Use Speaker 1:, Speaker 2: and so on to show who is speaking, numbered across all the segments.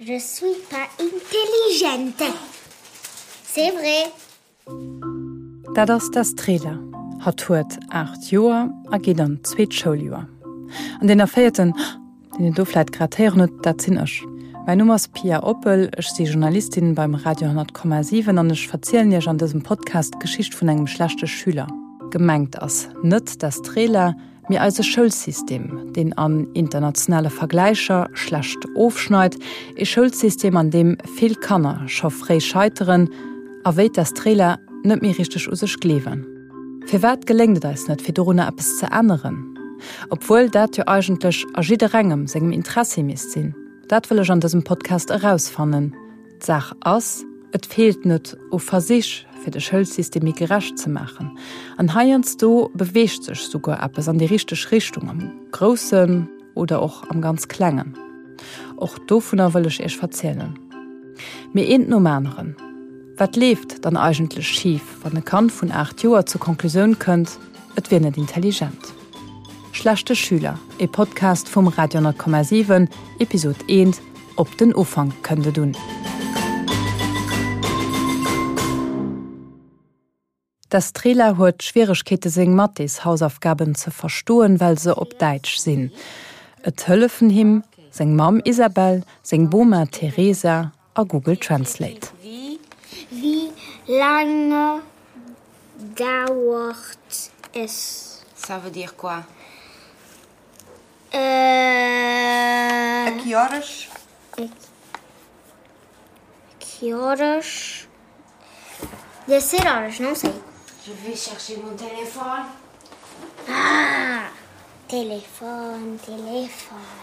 Speaker 1: Je suis pas intelligente. C'est vrai.
Speaker 2: Dat ass d'Estrela. Hatt huet 8 Joer a geet an d'zweet Schouljoer. An deen erféierten Deen een do vläit grad héieren huet, dat sinn ech. Mäin Numm ass Pia Oppel, ech si Journalistin beim Radio 10,7 an ech verzielen Iech an dësem Podcast d'Geschicht vun engem schlechte Schüler. Gemengt ass net d'Estrela, mee eise Schoulsystem, deen an internationale Vergläicher schlecht ofschneit. Ee Schoulsystem, an deem vill Kanner scho fréi scheiteren a wéi d'Estrela net méi richteg u sech gleewen. Firwat geléngt et eis net, fir dorunner eppes ze änneren? Obwuel dat jo eigentlech a jidderengem sengem Interessi misst sinn. Dat wëll ech an dësem Podcast erausfannen. D'Saach ass, et feelt net u Versich, fir de Schoulsystem méi gerecht ze maachen. An heiansdo beweegt sech souguer eppes an déi richteg Richtung, am Groussen oder och am ganz Klengen. Och dovunner wëll ech Iech verzielen. Mee eent nom aneren. Wat leeft dann eigentlech schif, wann e Kand vun 8 Joer zur Konklusioun kënnt, et wier net intelligent? Schlechte Schüler, e Podcast vum Radio 10,7, Episod 1, Op den Ufank kënnt et un. D'Estrela huet Schwieregkeete seng Mathés-Hausaufgaben ze verstoen, well se op Däitsch sinn. Et hëllefen him seng Mamm Isabel, seng Boma Teresa a Google Translate.
Speaker 1: Wie lange dauert es?
Speaker 3: Ça veut dire quoi?
Speaker 1: Euh.
Speaker 3: A que horas?
Speaker 1: A que horas? Deve ser horas, não sei.
Speaker 3: Je vais chercher mon téléphone.
Speaker 1: Ah! Téléphone, téléphone.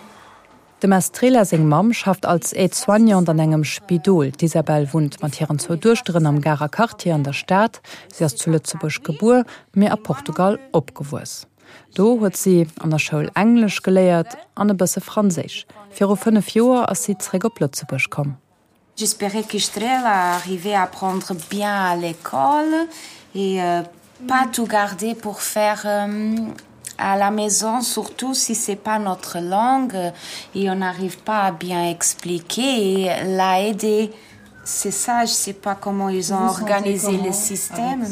Speaker 2: Dem Estrela seng Mamm schafft als Aide-soignante an engem Spidol. D'Isabel wunnt mat hiren zwou Duechteren am Garer Quartier an der Stad. Si ass zu Lëtzebuerg gebuer, mee a Portugal opgewuess. Do huet si an der Schoul Englesch geléiert an e bësse Franséisch. Viru 5 Joer ass si zeréck op Lëtzebuerg komm.
Speaker 3: J'espérais qu'Estrela arrivait à apprendre bien à l'école et euh, pas tout garder pour faire euh, à la maison, surtout si c'est pas notre langue et on n'arrive pas à bien expliquer et la aider. C'est ça, je sais pas comment ils ont
Speaker 4: Vous
Speaker 3: organisé
Speaker 4: comment
Speaker 3: le système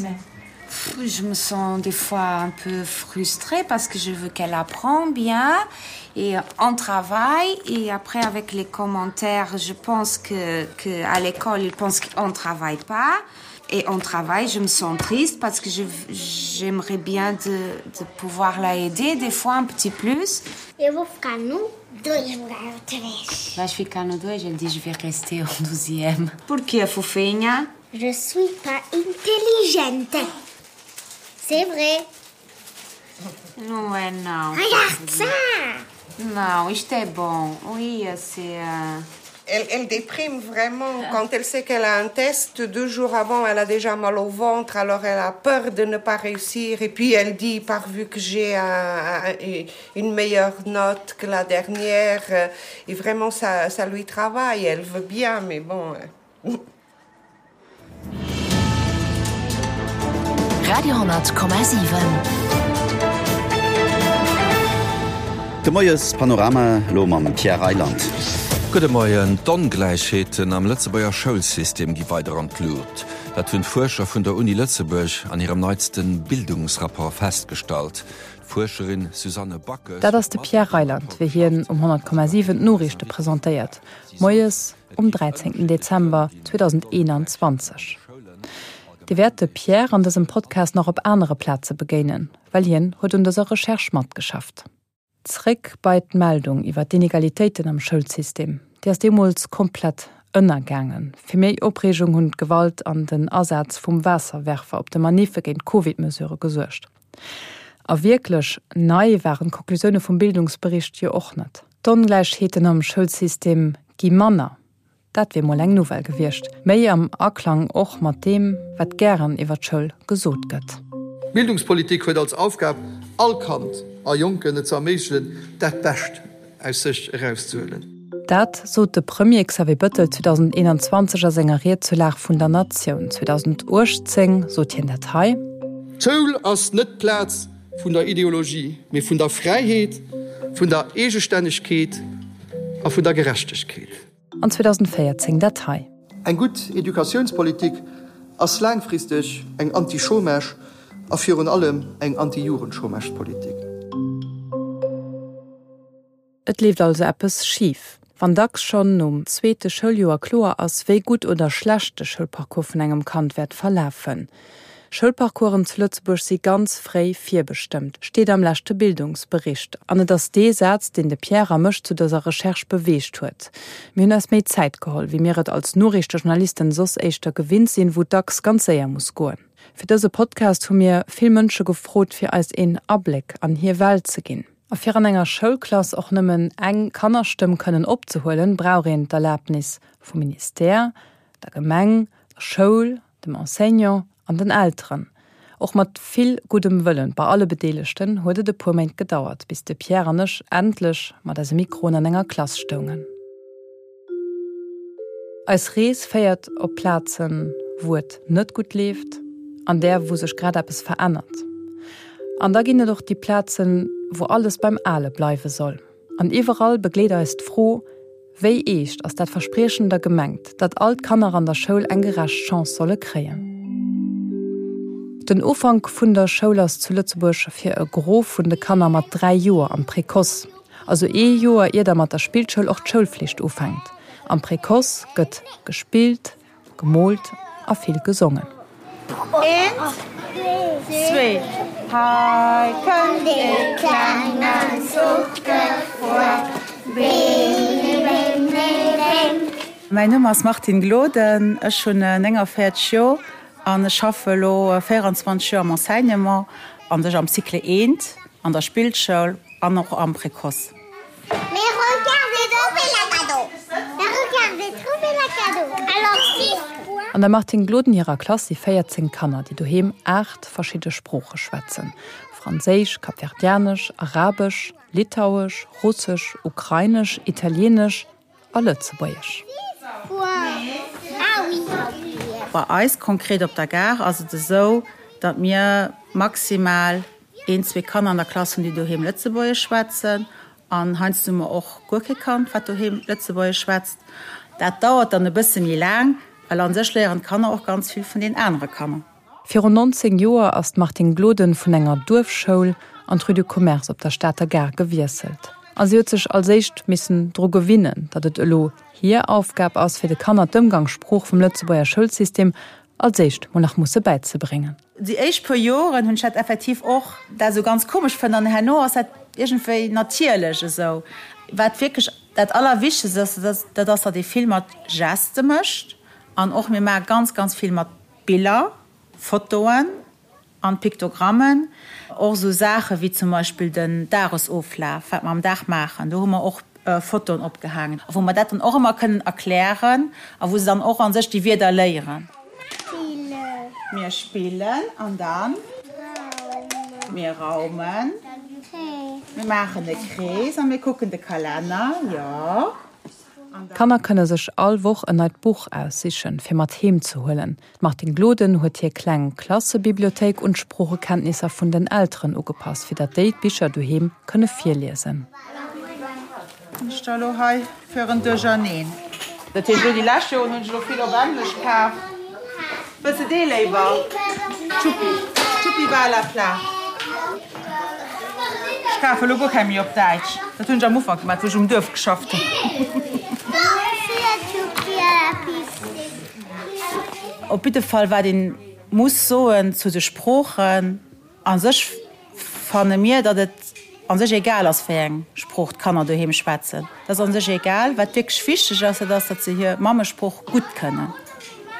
Speaker 3: mais je me sens des fois un peu frustrée parce que je veux qu'elle apprend bien et on travaille et après avec les commentaires je pense que, que à l'école ils pensent qu'on travaille pas et on travaille je me sens triste parce que j'aimerais bien de, de pouvoir la aider des fois un petit plus
Speaker 1: Eu vou ficar no 2 lugar outra vez.
Speaker 3: Vais ficar no 2, elle dit je vais rester au 12e. Porquê, fofinha?
Speaker 1: Je suis pas intelligente. C'est vrai.
Speaker 3: Não é não.
Speaker 1: Regarde ça!
Speaker 3: Não, isto é bom. Ia ser. Uh...
Speaker 5: Elle, elle déprime vraiment quand elle sait qu'elle a un test deux jours avant elle a déjà mal au ventre alors elle a peur de ne pas réussir et puis elle dit par vu que j'ai un, un, une meilleure note que la dernière euh, et vraiment ça, ça lui travaille elle veut bien mais bon euh.
Speaker 6: Radio 10,7.
Speaker 7: De Moies Panorama elo mam Pierre Reyland.
Speaker 8: Gudde Moien. D'Ongläichheeten am Lëtzebuerger Schoulsystem gi weider an d'Lut. Dat hunn d'Fuerscher vun der Uni Lëtzebuerg an hirem neitste Bildungsrapport festgestallt. D'Fuerscherin Susanne Backes
Speaker 2: Dat ass de Pierre Reyland, wéi hien um 100,7 d'Noriichte presentéiert. Moies um 13 Dezember 2021. Dir wäert de Pierre an dësem Podcast nach op anere Plaze begéinen, well hien huet un dëser Recherche matgeschafft. Zréck bei d'Meldung iwwer d'Inegalitéiten am Schoulsystem. Déi ass deemools komplett ënnergaangen. Fir méi Opreegung hunn d'Gewalt an den Asaz vum Waasserwerfer op de Maniffe géint d'Covid-Mesurë gesuergt. A wierklech nei waren d'Konklusioune vum Bildungsbericht jo och net. D'Ongläichheeten am Schoulsystem gi manner, dat wier mol eng Nouvelle gewiescht. Méi am Aklang och mat deem, wat gären iwwer d'Schoul gesot gëtt.
Speaker 9: D'Bildungspolitik huet als Aufgab, all Kand a Jonken et ze erméiglechen, dat Bescht aus sech erauszehuelen.
Speaker 2: Dat sot de Premier Xavier Bëttel 2021 a senger Ried zur Lag vun der Natioun. 2018 sot hien dat hei.
Speaker 9: D'Schoul ass net d'Plaz vun der Ideologie, mee vun der Fräiheet, vun der Eegestännegkeet a vun der Gerechtegkeet.
Speaker 2: An 2014 dat hei.
Speaker 9: Eng gutt Educatiounspolitik ass laangfristeg eng Anti-Chômage a virun allem eng Anti-Jugendchômagepolitik.
Speaker 2: Et leeft also eppes schif, wann dacks schonn nom zweete Schouljoer kloer ass, wéi gutt oder schlecht de Schoulparcours vun engem Kand wäert verlafen. Schoulparcoursen zu Lëtzebuerg si ganz fréi virbestëmmt, steet am leschte Bildungsbericht. An et ass dee Saz, deen de Pierre a mech zu dëser Recherche beweegt huet. Mir hunn eis méi Zäit geholl, wéi mir et als Noriichtejournalisten soss éischter gewinnt sinn, wou et dacks ganz séier muss goen. Fir dëse Podcast hu mir vill Mënsche gefrot, fir eis een Abléck an hir Welt ze ginn. A fir an enger Schoulklass och nëmmen eng Kannerstëmm kënnen opzehuelen, brauch een d'Erlabnis vum Ministère, der Gemeng, der Schoul, dem Enseignant an den Elteren. Och mat vill guddem Wëllen bei alle Bedeelegten huet et e puer Méint gedauert, bis de Pierre an ech endlech mat eise Mikroen an enger Klass stoungen. Eis Rees féiert op Plazen, wou et net gutt leeft, an där, wou sech grad eppes verännert. An da ginn et och déi Plazen, wou alles beim Ale bleiwe soll. An iwwerall begleet eis d'Fro, Wéi eescht ass dat Verspriechen da gemengt, datt all d'Kanner an der Schoul eng gerecht Chance solle kréien? Den Ufank vun der Schoul ass zu Lëtzebuerg fir e Gros vun de Kanner mat 3 Joer am Précoce. Also ee Joer ier da mat der Spillschoul och d'Schoulflicht ufänkt. Am Précoce gëtt gespillt, gemoolt a vill gesongen.
Speaker 4: Eent, zwee, hei kënnt ee klengen Zuch gefuer, Bim, bim, bim, bim.
Speaker 10: Mäin Numm ass Martine Gloden, ech hunn 49 Joer an ech schaffe elo 24 Joer am Enseignement, an sech am Cycle eent an der Spillschoul. An och am Précoce.
Speaker 2: An der Martine Gloden hirer Klass si 14 Kanner, déi doheem 8 verschidde Sprooche schwätzen, Franséisch, Kapverdianesch, Arabesch, Litauesch, Russesch, Ukrainesch, Italieenesch a Lëtzebuergesch.
Speaker 10: Bei eis konkret op der Gare ass et esou, datt mir maximal Een, zwee Kanner an der Klass hunn, déi doheem Lëtzebuergesch schwätzen. An heiansdo hu mer och guer kee Kand, wat doheem Lëtzebuergesch schwätzt. Dat dauert dann e bësse méi laang, well a sech léieren d'Kanner och ganz vill vun den anere Kanner.
Speaker 2: Virun 19 Joer ass d'Martine Gloden vun enger Duerfschoul an d'Rue du Commerce op der Stater Gare gewiesselt. A si huet sech als éischt missen dru gewinnen, datt et elo hir Aufgab ass, fir de Kanner d'Ëmgangssprooch vum Lëtzebuerger Schoulsystem als éischt mol nach musse bäizebréngen.
Speaker 10: Déi éischt puer Joren hunn ech dat effektiv och dat esou ganz komesch fënnt an herno ass dat iergendwéi natierlech esou. Wat wierklech dat Allerwichtegst ass, dat ass, datt ee vill mat Geste mécht an och mir maache ganz, ganz vill mat Biller, Fotoen an Piktogrammen. Och esou Saache wéi zum Beispill den Dagesoflaf, wat mer am Dag maachen, do hu mer och Fotoen opgehaangen, wou mer dat dann och ëmmer kënnen erklären a wou se dann och a sech déi Wierder léieren. Mir spillen an dann mir raumen. Mir maachen e Krees a mir kucken de Kalenner, jo.
Speaker 2: D'Kanner kënne sech all Woch en neit Buch aussichen, fir mat heem ze huelen. D'Martine Gloden huet hir kleng Klassebibliothéik un d'Sproochekenntnisser vun den Elteren ugepasst, fir datt déi d'Bicher doheem kënne virliesen.
Speaker 10: Ech da lo hei fir en Duercherneen. Dat heescht elo déi lescht Joren hunn ech elo vill op Englesch kaf. Wëlls de dee léiwer? Tschuppi, Tschuppi va à la plage. Ech kafe lo guer keng méi op Däitsch. Dat hunn ech am Ufank gemaach, wou ech um Duerf geschafft hunn. Op jidde Fall wat een muss soen zu de Sproochen, a sech fanne mir, datt et a sech egal ass wéi eng Sprooch d'Kanner doheem schwätzen. Dat ass a sech egal. Wat wierklech wichteg ass, dat ass, datt se hir Mammesprooch gutt kënnen,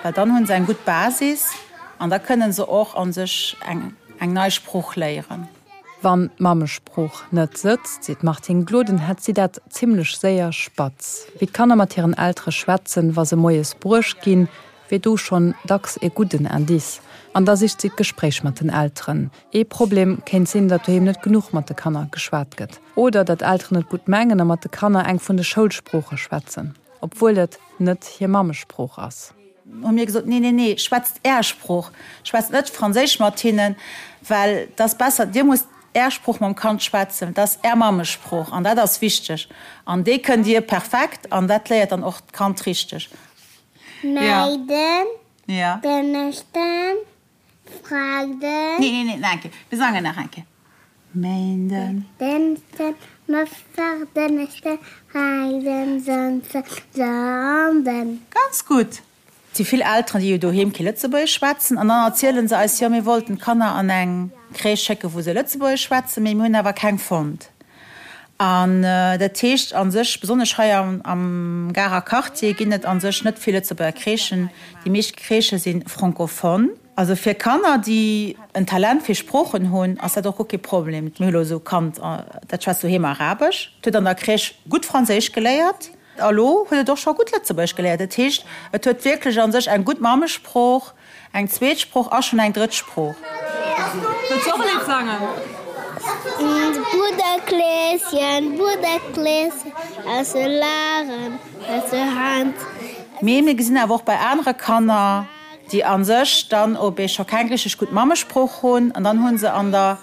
Speaker 10: well dann hunn se eng gutt Basis an da kënnen se och a sech eng nei Sprooch léieren.
Speaker 2: Wann d'Mammesprooch net sëtzt, seet d'Martine Gloden, hätt si dat zimmlech séier spatz. Wéi d'Kanner mat hiren Eltere schwätzen, wa se moies bruecht ginn, wier do schonn dacks e gudden Indice. An da sicht si d'Gespréich mat den Elteren. Ee Problem kéint sinn, datt doheem net genuch mat de Kanner geschwat gëtt. Oder datt Elteren et gutt mengen a mat de Kanner eng vun de Schoulsprooche schwätzen, obwuel et net hir Mammesprooch ass.
Speaker 10: Hu mir gesot, Nee, nee, nee, schwätzt Är Sprooch, schwätzt net Franséisch mat hinnen, well et ass besser, Dir musst. Är Sprooch mam Kand schwätzen, dat ass Är Mammesprooch an dat ass wichteg an déi kënnt Dir perfekt an dat léiert dann och d'Kand richteg.
Speaker 1: Meiden, Dënneschden, Freiden.
Speaker 10: Nee, nee, nee, nach eng Kéier. Mir sangen nach eng Kéier. Méinden.
Speaker 1: Dënschden, Mëttwoch, Donneschden, Freiden, Samsden, Sonnden.
Speaker 10: Ganz gutt! Et si vill Elteren, déi jo doheem kee Lëtzebuergesch schwätzen an dann erziele se eis, jo mir wollten d'Kanner an eng Crèche schécken, wou se Lëtzebuergesch schwätzen, mee mir hunn awer keng fonnt. An dat heescht a sech, besonnesch hei am Garer Quartier ginn et a sech net vill Lëtzebuerger Crèchen. Déi meescht Crèchë si francophone. Also fir Kanner, déi en Talent fir Sproochen hunn, ass dat och guer kee Problem. Mir hu lo esou e Kand, dat schwätzt doheem Arabesch, et huet an der Crèche gutt Franséisch geléiert a lo huet et och scho gutt Lëtzebuergesch geléiert. Dat heescht, et huet wierklech a sech eng gutt Mammesprooch, eng zweet Sprooch a schonn eng drëtt Sprooch.
Speaker 2: Wëlls du och e Lidd sangen?
Speaker 1: Brudder Kleeschen, Brudder Kleeschen, aus de Laren, aus der Hand.
Speaker 10: Mee mir gesinn awer och bei anere Kanner, déi a sech dann op ee scho keng richteg gutt Mammesprooch hunn an dann hu se an der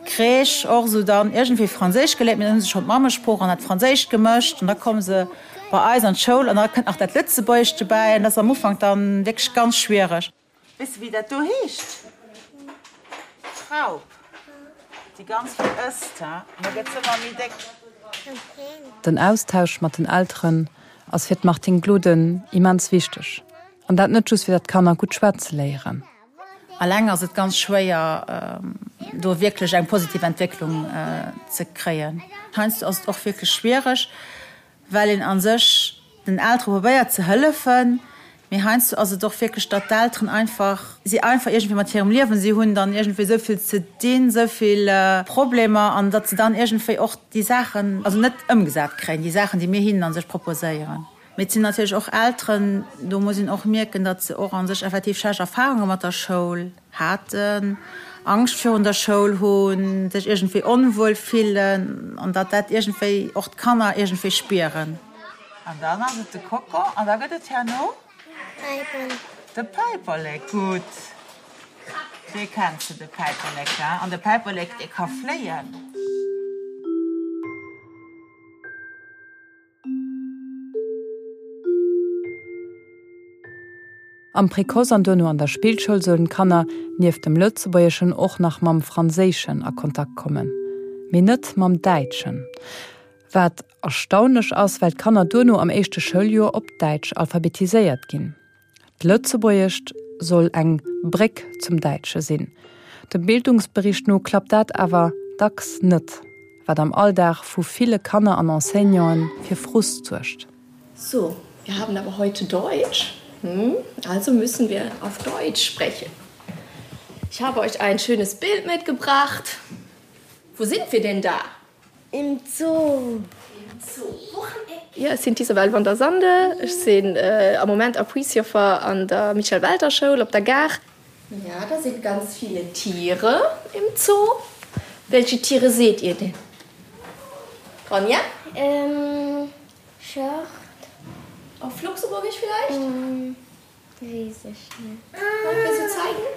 Speaker 10: Crèche och esou dann iergendwéi Franséisch geléiert, mee dann hu se schonn d'Mammesprooch an dat Franséischt gemëscht an da komme se bei eis an d'Schoul an da kënnt nach dat Lëtzebuergescht dobäi an dat ass am Ufank dann wierklech ganz schwiereg. Weess de wéi dat do heescht? D'Raup, déi ganz vill ësst, ha, an da gëtt se ëmmer méi déck.
Speaker 2: Den Austausch mat den Elteren ass fir d'Martine Gloden immens wichteg. An dat net just fir datt d'Kanner gutt schwätze léieren.
Speaker 10: Alleng ass et ganz schwéier do wierklech eng positiv Entwécklung ze kréien. Heiansdo ass et och wierklech schwiereg, well een a sech den Eltere probéiert ze hëllefen, mee heiansdo ass et och wierklech, datt d'Elteren einfach, si einfach iergendwéi mat hirem Liewen, si hunn dann iergendwéi esou vill ze dinn, esou vill Problemer an datt se dann iergendwéi och déi Saachen also net ëmgesat kréien, déi Saachen, déi mir hinnen a sech proposéieren. Mee et sinn natierlech och Elteren, do muss een och mierken, datt se och a sech effektiv schlecht Erfarunge mat der Schoul haten, Angscht virun der Schoul hunn, sech iergendwéi onwuel fillen an datt dat iergendwéi och d'Kanner iergendwéi spieren. An dann ass et de Koko an da gëtt et herno? De Päiperlek, gutt. Dee kenns de, de Päiperlek, he? An de Päiperlek, dee ka fléien.
Speaker 2: Am Précoce an duerno an der Spillschoul sollen d'Kanner nieft dem Lëtzebuergeschen och nach mam Franséischen a Kontakt kommen, mee net mam Däitschen. Wat erstaunlech ass, well d'Kanner duerno am éischte Schouljoer op Däitsch alphabetiséiert ginn. D'Lëtzebuergescht soll eng Bréck zum Däitsche sinn. Dem Bildungsbericht no klappt dat awer dacks net, wat am Alldag vu ville Kanner an Enseignanten fir Frust suergt.
Speaker 11: So, wir haben aber heute Deutsch, hm? Also müssen wir auf Deutsch sprechen. Ich habe euch ein schönes Bild mitgebracht. Wo sind wir denn da?
Speaker 1: Im Zoo.
Speaker 11: Jo, ech sinn d'Isabelle van der Sande. Ech sinn am Moment Appuisjoffer an der Michel Welter Schoul op der Gare. Ja, da sind ganz viele Tiere im Zoo. Welche Tiere seht ihr denn? Ronja?
Speaker 1: Ähm, Schort.
Speaker 11: Auf Luxemburgisch vielleicht?
Speaker 1: Wees ech net.
Speaker 11: Wëlls du zeigen?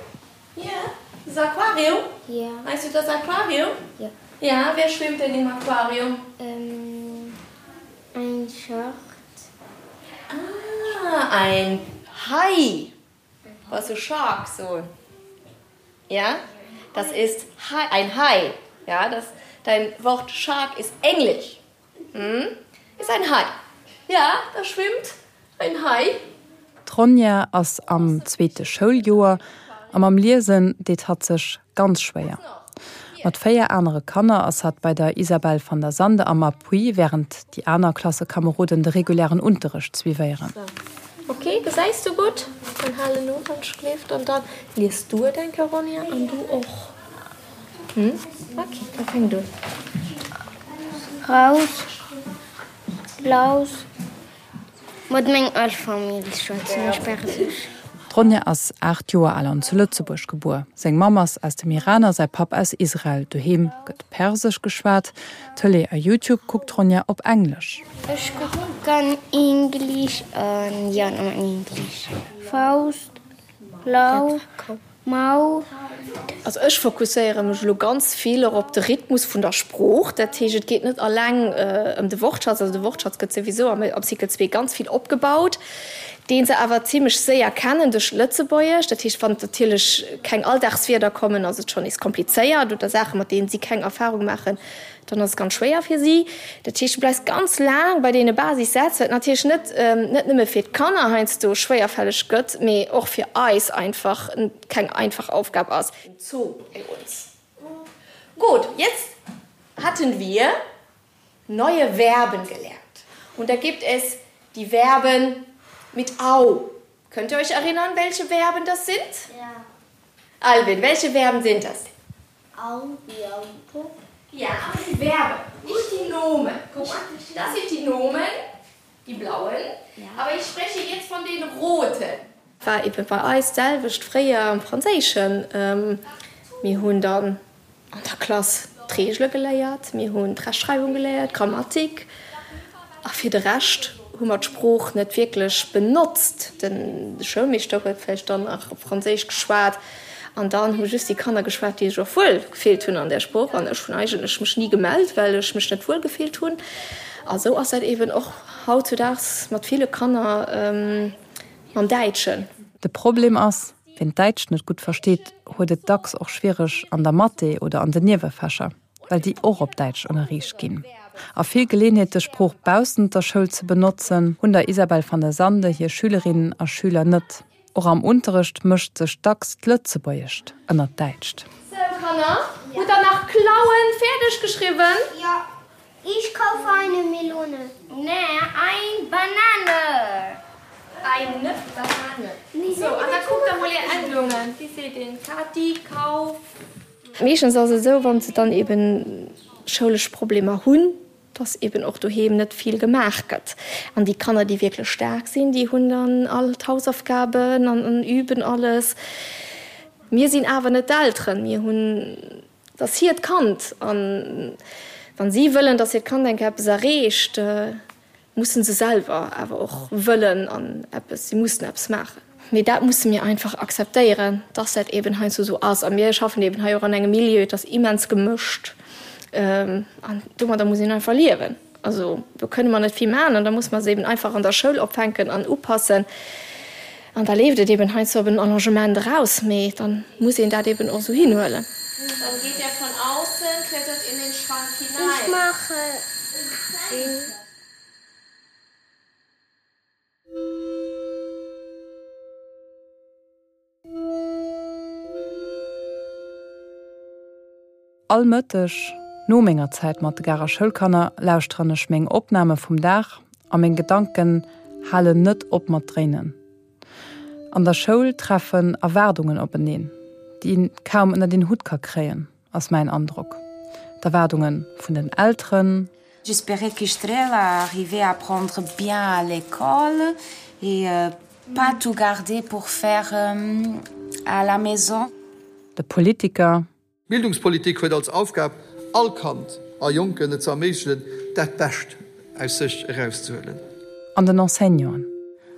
Speaker 11: Ja. Das Aquarium?
Speaker 1: Ja.
Speaker 11: Meinst du das Aquarium?
Speaker 1: Ja.
Speaker 11: Ja, wer schwimmt denn im Aquarium?
Speaker 1: Ähm, ein Schort.
Speaker 11: Ah, ein Hai. Was du Shark so. Ja, das ist Hai, ein Hai. Ja, das, dein Wort Shark ist Englisch. Hm, ist ein Hai. Ja, da schwimmt ein Hai.
Speaker 2: D'Ronja ass am zweete Schouljoer a mam Liesen deet hatt sech ganz schwéier. Mat 4 anere Kanner ass hatt bei der Isabelle van der Sande am Appui, wärend déi aner Klassekameroden de regulären Unterrecht suivéieren.
Speaker 11: Ok, gesäis du gutt? Dann halen no, wann schléift an dann lies du et eng Kéier, Ronja, an du och. Hm? Ok, da fänkt un.
Speaker 1: Raus, laus, mat meng al Famill schwätzen ech persesch.
Speaker 2: D'Ronja ass 8 Joer al an zu Lëtzebuerg gebuer. Seng Mamm ass aus dem Iran a säi Papp aus Israel. Doheem gëtt Persesch geschwat. Tëlee a Youtube kuckt d'Ronja op Englesch.
Speaker 1: Ech kucken English an jo nëmmen English. Faust, Lau, Mau.
Speaker 11: Also ech fokusséiere mech elo ganz vill och op de Rhythmus vun der Sprooch. Dat heescht, et geet net alleng ëm de Wortschatz, also de Wortschatz gëtt souwisou am Cycle 2 ganz vill opgebaut, dee se awer zimlech séier kennen duerch d'Lëtzebuergesch. Dat heescht, wann natierlech keng Alldagswierder kommen, ass et schonn nees komplizéiert oder Saache mat deenen si keng Erfarung maachen, dann ass et ganz schwéier fir si. Dat heescht, du bleifs ganz laang bei deene Basissätz, wat natierlech net net nëmme fir d'Kanner heiansdo schwéierfälleg gëtt, mee och fir eis einfach keng einfach Aufgab ass. Im Zoo bei uns. Gut, jetzt hatten wir neue Verben gelernt. Und da gibt es die Verben mit au. Könnt ihr euch erinnern, welche Verben das sind?
Speaker 1: Ja.
Speaker 11: Alvin, welche Verben sind das?
Speaker 1: Au wie Auto.
Speaker 11: Ja, aber die Verben, nicht die Nomen. Guck mal, das sind die Nomen, die blauen. Ja. Aber ich spreche jetzt von den roten. War eben bei eis d'selwecht fréier am Franséischen. Mir hunn dann an der Klass d'Reegele geléiert, mir hunn d'Rechtschreiwung geléiert, d'Grammatik, a fir de Rescht hu mer d'Sprooch net wierklech benotzt. De Schoulmeeschter huet vläicht dann nach op Franséisch geschwat an dann hu just déi Kanner geschwat, déi sech och wuel gefillt hunn an där Sprooch. An ech hunn eigentlech mech ni gemellt, well ech mech net wuel gefillt hunn. A sou ass dat eeben och hautzudaags mat ville Kanner mam Däitschen.
Speaker 2: De Problem ass, Wien d'Däitscht net gutt versteet, huet et dacks och schwiereg an der Mathé oder an den Niewefächer, well déi och op Däitsch ënnerriicht ginn. A vill Geleeënheet, dës Sprooch baussent der Schoul ze benotzen, hunn der Isabel van der Sande hir Schülerinnen a Schüler net. Och am Unterrecht mëscht sech dacks d'Lëtzebuergescht ënnert d'Däitscht.
Speaker 11: Sou, Kanner, hutt der nach Klauen fäerdeg geschriwwen?
Speaker 1: Jo. Ich kaufe eine Melone. Nee, ein Banane.
Speaker 11: Eine Banane. Sou, an da kuckt der mol är Endungen. Wéi seet een Kati, Kauf? Meeschtens ass et esou, wa se dann eben schoulesch Problemer hunn, dass eben och doheem net vill gemaach gëtt. An déi Kanner, déi wierklech staark sinn, déi hunn dann all d'Hausaufgaben an üben alles. Mir sinn awer net d'Elteren. Mir hunn Et ass hiert Kand an wann si wëllen, dass hiert Kand eng Kéier eppes erreecht, mussen se selwer awer och wëllen an eppes, si mussen eppes maachen. Mee dat musse mir einfach akzeptéieren, dass dat eben heiansdo esou ass. A mir schaffen eben hei och an engem Milieu, et ass immens gemëscht an domadder muss een einfach liewen. Also do kënne mer net vill maachen an da muss mer se eben einfach an der Schoul opfänken an upassen. An da leeft et eben heiansdo op en Allongement eraus, mee da muss een dat eben och esou hinhuelen.
Speaker 12: Dann geht er von außen, klettert in den Schrank hinein.
Speaker 1: Ich mache den.
Speaker 2: All Mëtteg, no menger Zäit mat de Garer Schoulkanner, lauschteren ech meng Opname vum Dag a meng Gedanken halen net op mat dréinen. An der Schoul treffen Erwaardungen openeen, déi een kaum ënnert een Hutt ka kréien, ass mäin Androck. D'Erwaardunge vun den Elteren.
Speaker 3: J'espérais qu'Estrela arrivait à apprendre bien à l'école et pas tout garder pour faire à la maison.
Speaker 2: De Politiker.
Speaker 9: D'Bildungspolitik huet als Aufgab, all Kand a Jonken et ze erméiglechen, dat Bescht aus sech erauszehuelen.
Speaker 2: An den Enseignanten.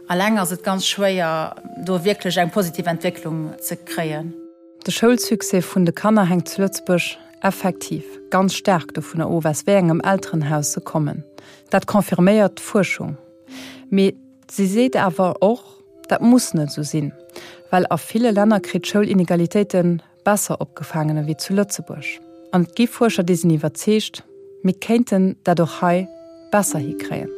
Speaker 10: Alleng ass et ganz schwéier, do wierklech eng positiv Entwécklung ze kréien.
Speaker 2: De Schoulsuccès vun de Kanner hänkt zu Lëtzebuerg effektiv ganz staark dovunner of, aus wéi engem Elterenhaus se kommen. Dat confirméiert d'Fuerschung. Mee si seet awer och, dat muss net esou sinn, well a ville Länner kritt d'Schoul Inegalitéite besser opgefaangen ewéi zu Lëtzebuerg. An et gi Fuerscher, déi sinn iwwerzeegt, mir kéinten dat och hei besser hikréien.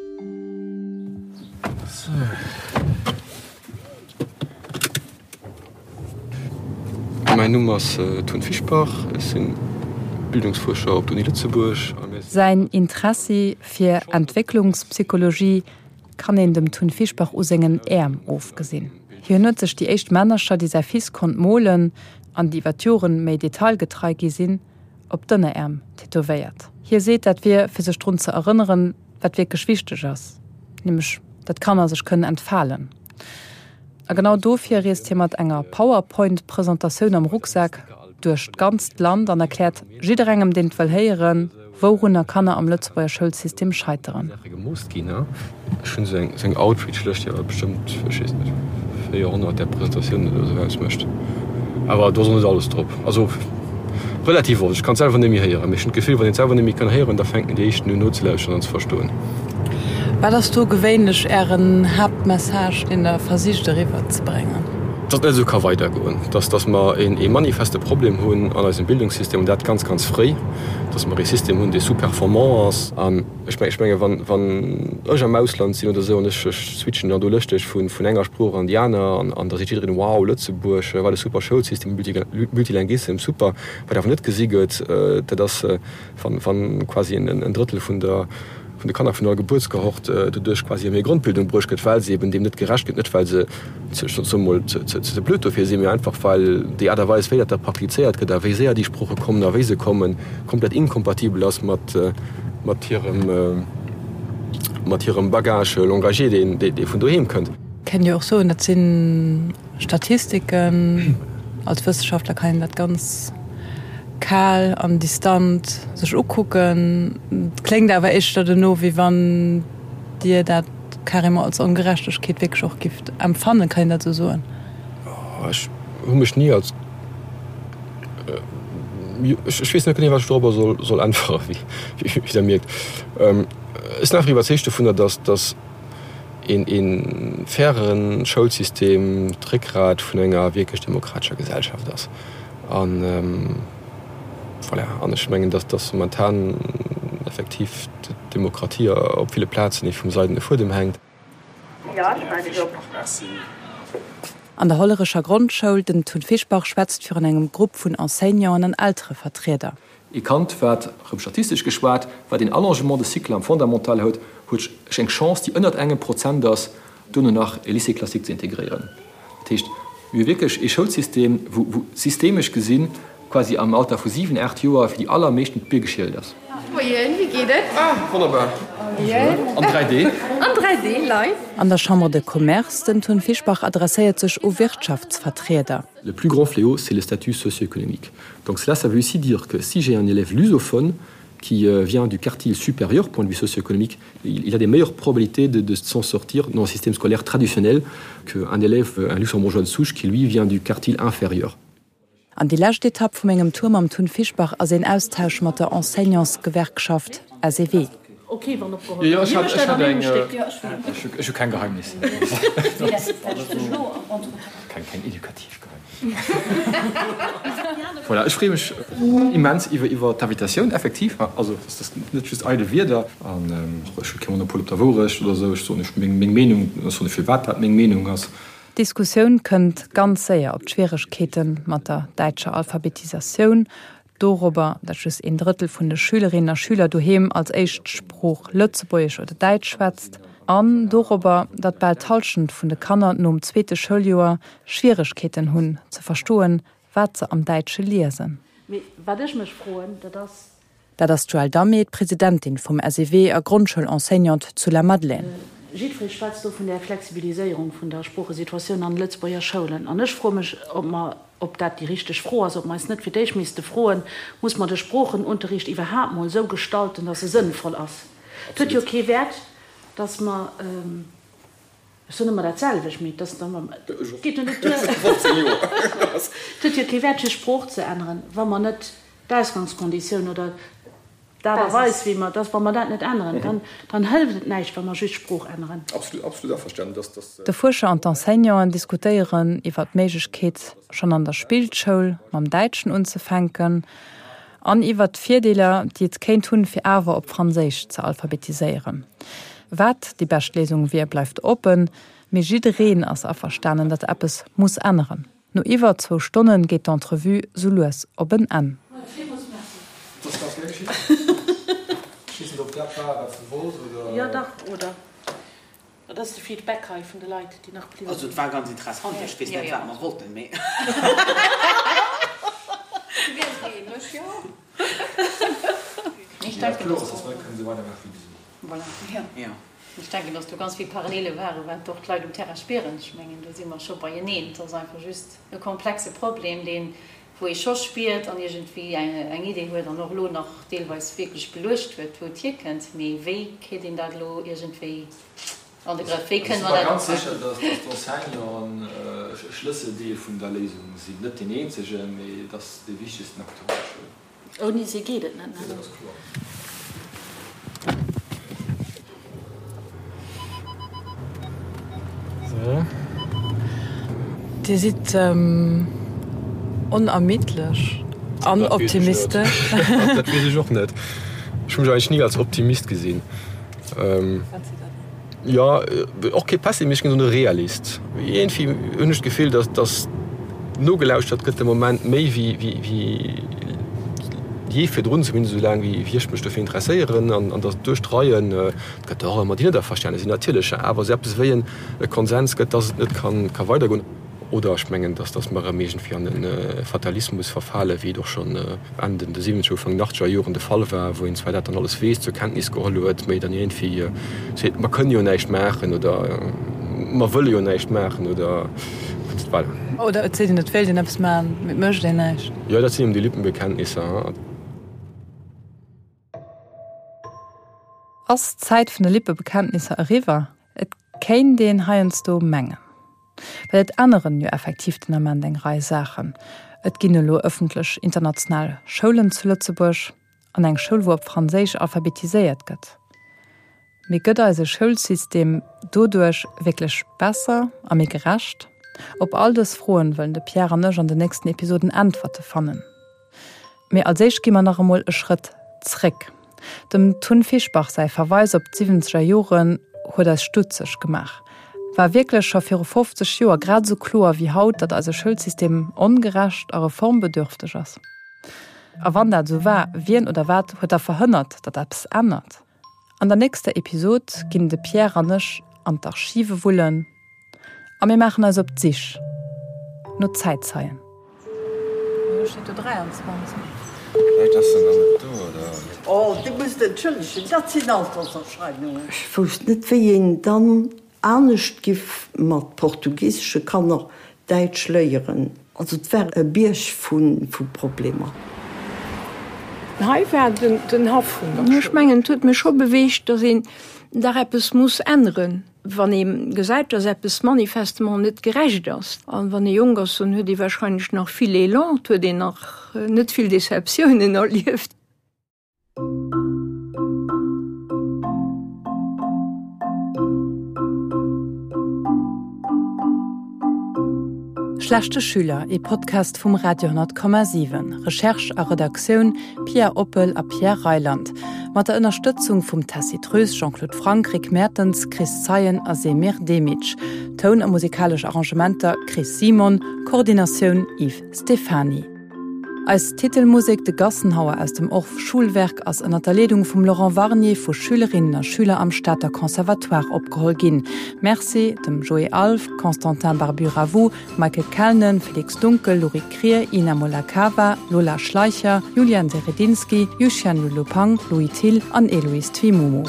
Speaker 8: Mäin Numm ass Tun Fischbach, ech sinn Bildungsfuerscher op der Uni Lëtzebuerg.
Speaker 2: Säin Interessi fir Entwécklungspsychologie kann een dem Tun Fischbach u sengen Äerm ofgesinn. Hien huet sech déi éischt Männercher, déi säi Fils konnt molen an déi iwwer d'Joren méi detailgetrei gi sinn, op d'Ënneräerm tätowéiert. Hie seet, dat wier fir sech drun ze erënneren, wat wierklech wichteg ass, nämlech datt d'Kanner sech kënnen entfalen. A genau dofir reest hie mat enger Powerpoint-Presentatioun am Rucksak duerch d'ganzt Land an erkläert jidderengem, deen et wëll héieren, wourunner Kanner am Lëtzebuerger Schoulsystem scheiteren.
Speaker 8: Saache gemoost ginn. Ech hunn esou eng Outreach-Lëscht, déi awer bestëmmt, ech weess net, 400 där Presentatiounen oder esou ausmécht.
Speaker 13: Awer do ass och net alles drop. Also relativ oft. Ech kann et selwer net méi héieren, mee ech hunn d'Gefill, wann een et selwer net méi kann héieren, da fänken déi éischten un nozelauschteren an ze verstoen.
Speaker 2: Wat ass do gewéinlech Ären Haaptmessage, deen Der versicht eriwwer ze bréngen?
Speaker 13: Datt et net esou ka weidergoen, datt datt mer ee manifeste Problem hunn an eisem Bildungssystem, an dat ganz, ganz fréi, datt mer ee System hunn, dee sous-performant ass. An ech menge wann, wann ech am Ausland sinn oder esou an ech switchen dann do lëschteg vun, vun enger Sprooch an déi aner an, an da seet jiddereen, Wow, Lëtzebuerg, wat e super Schoulsystem, Multilinguissem, super. Wat awer net gesi gëtt, dat ass, wann quasi en Drëttel vun der vun de Kanner vun der Gebuertskohort doduerch quasi ëm hir Grondbildung bruecht gëtt, well se eben deem net gerecht gëtt, net well se, ech soe mol, ze blöd dofir sinn, mee einfach well déi Aart a Weis, wéi dat da praktizéiert gëtt a wéi séier déi Sprooche kommen a wéi se kommen, komplett inkompatibel ass mat mat hirem mat hirem Bagage langagier, deen dee vun doheem kënnt.
Speaker 2: Kéint jo och soen, dat si Statistiken. Als Wëssenschaftler kann een dat ganz kal an distant sech ukucken. Et kléngt awer éischter dono, wéi wann Dir dat carrément als Ongerechtegkeet wierklech och gifft empfannen. Kann een dat esou soen?
Speaker 13: Ech hu mech ni als, ech weess net genee, wat ech dorobber soll äntweren, wéi Der mierkt. Ech sinn einfach iwwerzeegt dovunner, datt een fairen Schoulsystem d'Réckgrat vun enger wierklech demokratescher Gesellschaft ass. An voilà, an ech mengen, dass dass momentan effektiv d'Demokratie op ville Plazen ee vum seidene Fuedem hänkt.
Speaker 2: An der Hollerecher Grondschoul, den Tun Fischbach schwätzt virun engem Grupp vun Enseignanten an Elterevertrieder.
Speaker 13: Ee Kand, wat, erëm statistesch geschwat, wat een Allongement de cycle am Fondamental huet, huet eng Chance, déi ënnert engem Prozent ass, duerno nach e Lycée classique ze integréieren. Dat heescht, mir hu wierklech ee Schoulsystem, wou, wou systemesch gesinn, quasi am Alter vu 7, 8 Joer fir déi allermeeschten d'Bier geschielt ass.
Speaker 12: Moien, wéi geet et?
Speaker 13: Ah, wonnerbar.
Speaker 12: Moien.
Speaker 13: An 3D.
Speaker 12: An 3D, live.
Speaker 2: An der Chambre de Commerce, den Tun Fischbach adresséiert sech u Wirtschaftsvertrieder.
Speaker 13: Le plus grand fléau, c'est le statut socio-économique. Donc cela, ça veut aussi dire que si j'ai un élève lusophone qui euh, vient du quartier supérieur point de vue socio-économique, il, il a des meilleures probabilités de, de s'en sortir dans le système scolaire traditionnel qu'un élève euh, un luxembourgeois de souche qui lui vient du quartier inférieur.
Speaker 2: An déi lescht Etapp vu mengem Tour mam Tun Fischbach ass een Austausch mat der Enseignantsgewerkschaft SEW.
Speaker 13: Jo, ech hat, ech hat eng, ech hu keng Geheimnisser. Keng, keng edukativ Geheimnisser. Voilà, ech freeë mech immens iwwer, iwwer d'Invitatioun, effektiv. Also, dat ass net just eidel Wierder. An ech hu kee Monopol op der Wourecht oder esou. Ech soen iech meng, meng Meenung, ech soen iech firwat dat meng Meenung ass.
Speaker 2: D'Diskussioun kënnt ganz séier op d'Schwieregkeete mat der däitscher Alphabetisatioun, dorobber, datt just een Drëttel vun de Schülerinnen a Schüler doheem als éischt Sprooch Lëtzebuergesch oder Däitsch schwätzt, an dorobber, datt bal d'Hallschent vun de Kanner nom zweete Schouljoer Schwieregkeeten hunn, ze verstoen, wat se am Däitsche liesen.
Speaker 10: Mee wat ech mech froen, dat ass,
Speaker 2: Dat ass d'Joëlle Damé, d'Presidentin vum SEW a Grondschoul-Enseignante zu Lamadelaine.
Speaker 10: Jiddweree schwätzt do vun där Flexibiliséierung vun der Sproochesituatioun an de Lëtzebuerger Schoulen. An ech froe mech, ob mer, ob dat déi richteg Fro ass, ob mer eis net fir d'éischt misste froen, Muss mer de Sproochenunterricht iwwerhaapt mol esou gestalten, datt e sënnvoll ass? Et huet jo kee Wäert, datt mer. Ech soen ëmmer dat selwecht, mee et ass dann ëmmer, et geet jo net duer. Et huet jo kee Wäert fir Sprooch ze änneren, wa mer net d'Ausgangskonditioun oder d'Aart a Weis wéi mer, dass wa mer dat net änneren, dann, dann hëlleft et näischt wa mer just Sprooch änneren.
Speaker 2: De Fuerscher an d'Enseignanten diskutéieren iwwer d'Méiglechkeet, schonn an der Spillschoul mam Däitschen unzefänken an iwwert d'Virdeeler, déi et kéint hunn, fir awer op Franséisch ze alphabetiséieren. Wat déi bescht Léisung wier, bleift oppen, mee jiddereen ass averstanen, datt eppes muss änneren. No iwwer zwou Stonne geet d'Entrevue sou lues op en Enn.
Speaker 10: Dat ass de Feedback hei vun de Leit, déi nach bliwwe
Speaker 14: Also
Speaker 10: sinn.
Speaker 14: et war ganz interessant, ech weess net wat mer wollten, mee.
Speaker 15: Ech denken, dass Voilà. Ech denken, dass do ganz vill Parallele waren, wat och d'Leit um Terrain spieren. Ech mengen, do si mer scho beieneen. Et ass einfach just e komplexe Problem, deen, wou ee scho spiert an iergendwéi eng Idee huet an och elo nach deelweis wierklech beluecht huet, wou et hierkënnt. Mee wéi kritt een dat elo iergendwéi an de Grëff? Wéi kënne mer dat
Speaker 13: Ech si mer ganz sécher, dass d'Enseignanten. e Schlësseldeel vun der Léisung sinn. Net deen eenzegen, mee et ass dee wichtegsten Acteur an der Schoul.
Speaker 15: Ouni si geet et net, ne?
Speaker 13: Dat ass kloer. So.
Speaker 2: Dir sidd onermiddlech an optimistesch.
Speaker 13: Dat weess ech och net. Ech hu mech eigentlech ni als Optimist gesinn.
Speaker 2: Wat sidd Der dann?
Speaker 13: Jo, och kee Pessimist, ech ginn soen e Realist. Iergendwéi hunn ech d'Gefill, datt datt nogelauschtert gëtt de Moment méi wéi wéi jee virdrun, zumindest esou laang wéi ech mech dofir interesséieren an an datt duerch d'Reien, et gëtt der och ëmmer déi net averstane sinn natierlech, awer esou eppes wéi e Konsens gëtt, datt et net ka ka weidergoen. Oder ech mengen, dass dass mer erëm iergendwéi an e Fatalismus verfalen, wéi et och schonn Enn den de siwwenzeger, Ufank den achtzeger Joren de Fall war, wou een zwar dat dann alles weess, zur Kenntnis geholl huet, mä dann iergendwéi seet, mer kënne jo näischt maachen oder mer wëlle jo näischt maachen oder voilà.
Speaker 2: Oder et seet een, et wéilt een eppes maachen, mä et mécht een näischt.
Speaker 13: Jo, dat sinn eben déi Lippenbekenntnisser.
Speaker 2: Ass d'Zäit vun de Lippebekenntnisser eriwwer? Et kéint een heiansdo mengen. Well et änneren jo effektiv den Ament eng Rei Saachen. Et ginn elo ëffentlech international Schoulen zu Lëtzebuerg an eng Schoul, wou op Franséisch alphabetiséiert gëtt. Mee gëtt eise Schoulsystem doduerch wierklech besser a méi gerecht? Op all dës Froen wëllen de Pierre an ech an den nächsten Episoden Äntwerte fannen. Mee als éischt gi mer nach emol e Schrëtt zréck. Dem Tun Fischbach säi Verweis op d'siwwenzeger Joren huet eis stutzeg gemaach. War wierklech scho viru 50 Joer grad esou kloer wéi haut, datt eise Schoulsystem ongerecht a reformbedürfteg ass? A wann dat esou war, wien oder wat huet da verhënnert, datt eppes ännert? An der nächster Episod ginn de Pierre an ech an d'Archive wullen a mir maachen eis op d'Sich no Zäitzeien. Elo steet do 23.
Speaker 8: Vläicht ass en dann net do, oder?
Speaker 16: Oh, Dir musst entschëllegen, dat sinn Alterserscheinungen.
Speaker 17: Ech wousst net, wéi een dann anescht giff mat portugisesche Kanner Däitsch léieren. Also et war e Bierg vu Problemer.
Speaker 18: Hei war den Haff vun der Schoul. Ech mengen, et huet mech scho beweegt, datt een dach eppes muss änneren, wann ee gesäit, datt eppes manifestement net gerecht ass. A wann ee jonk ass, dann huet ee wahrscheinlech nach vill Elan, et huet een nach net vill Deceptiounen erlieft.
Speaker 2: Schlechte Schüler, ee Podcast vum Radio 10,7. Recherche a Redaktioun, Pia Oppel a Pierre Reyland. Mat der Ënnerstëtzung vum Tessy Treus, Jean-Claude Franck, Rick Mertens, Chris Zeien a Semir Demic. Toun a musikalesch Arrangementer, Chris Simon. Koordinatioun, Yves Stephany. Eis Titelmusek De Gassenhauer aus dem Orff Schulwerk ass ënner der Leedung vum Laurent Warnier vu Schülerinnen a Schüler am Stater Conservatoire opgeholl ginn. Merci dem Joé Alff, Constantin Barbu-Ravoux, Michael Kellnen, Felix Dunkel, Lorik Krier, Ina Molakava, Lola Schleicher, Julian Seredinski, Yuxian Lulupang, Louis Thill an Eloïse Twimomo.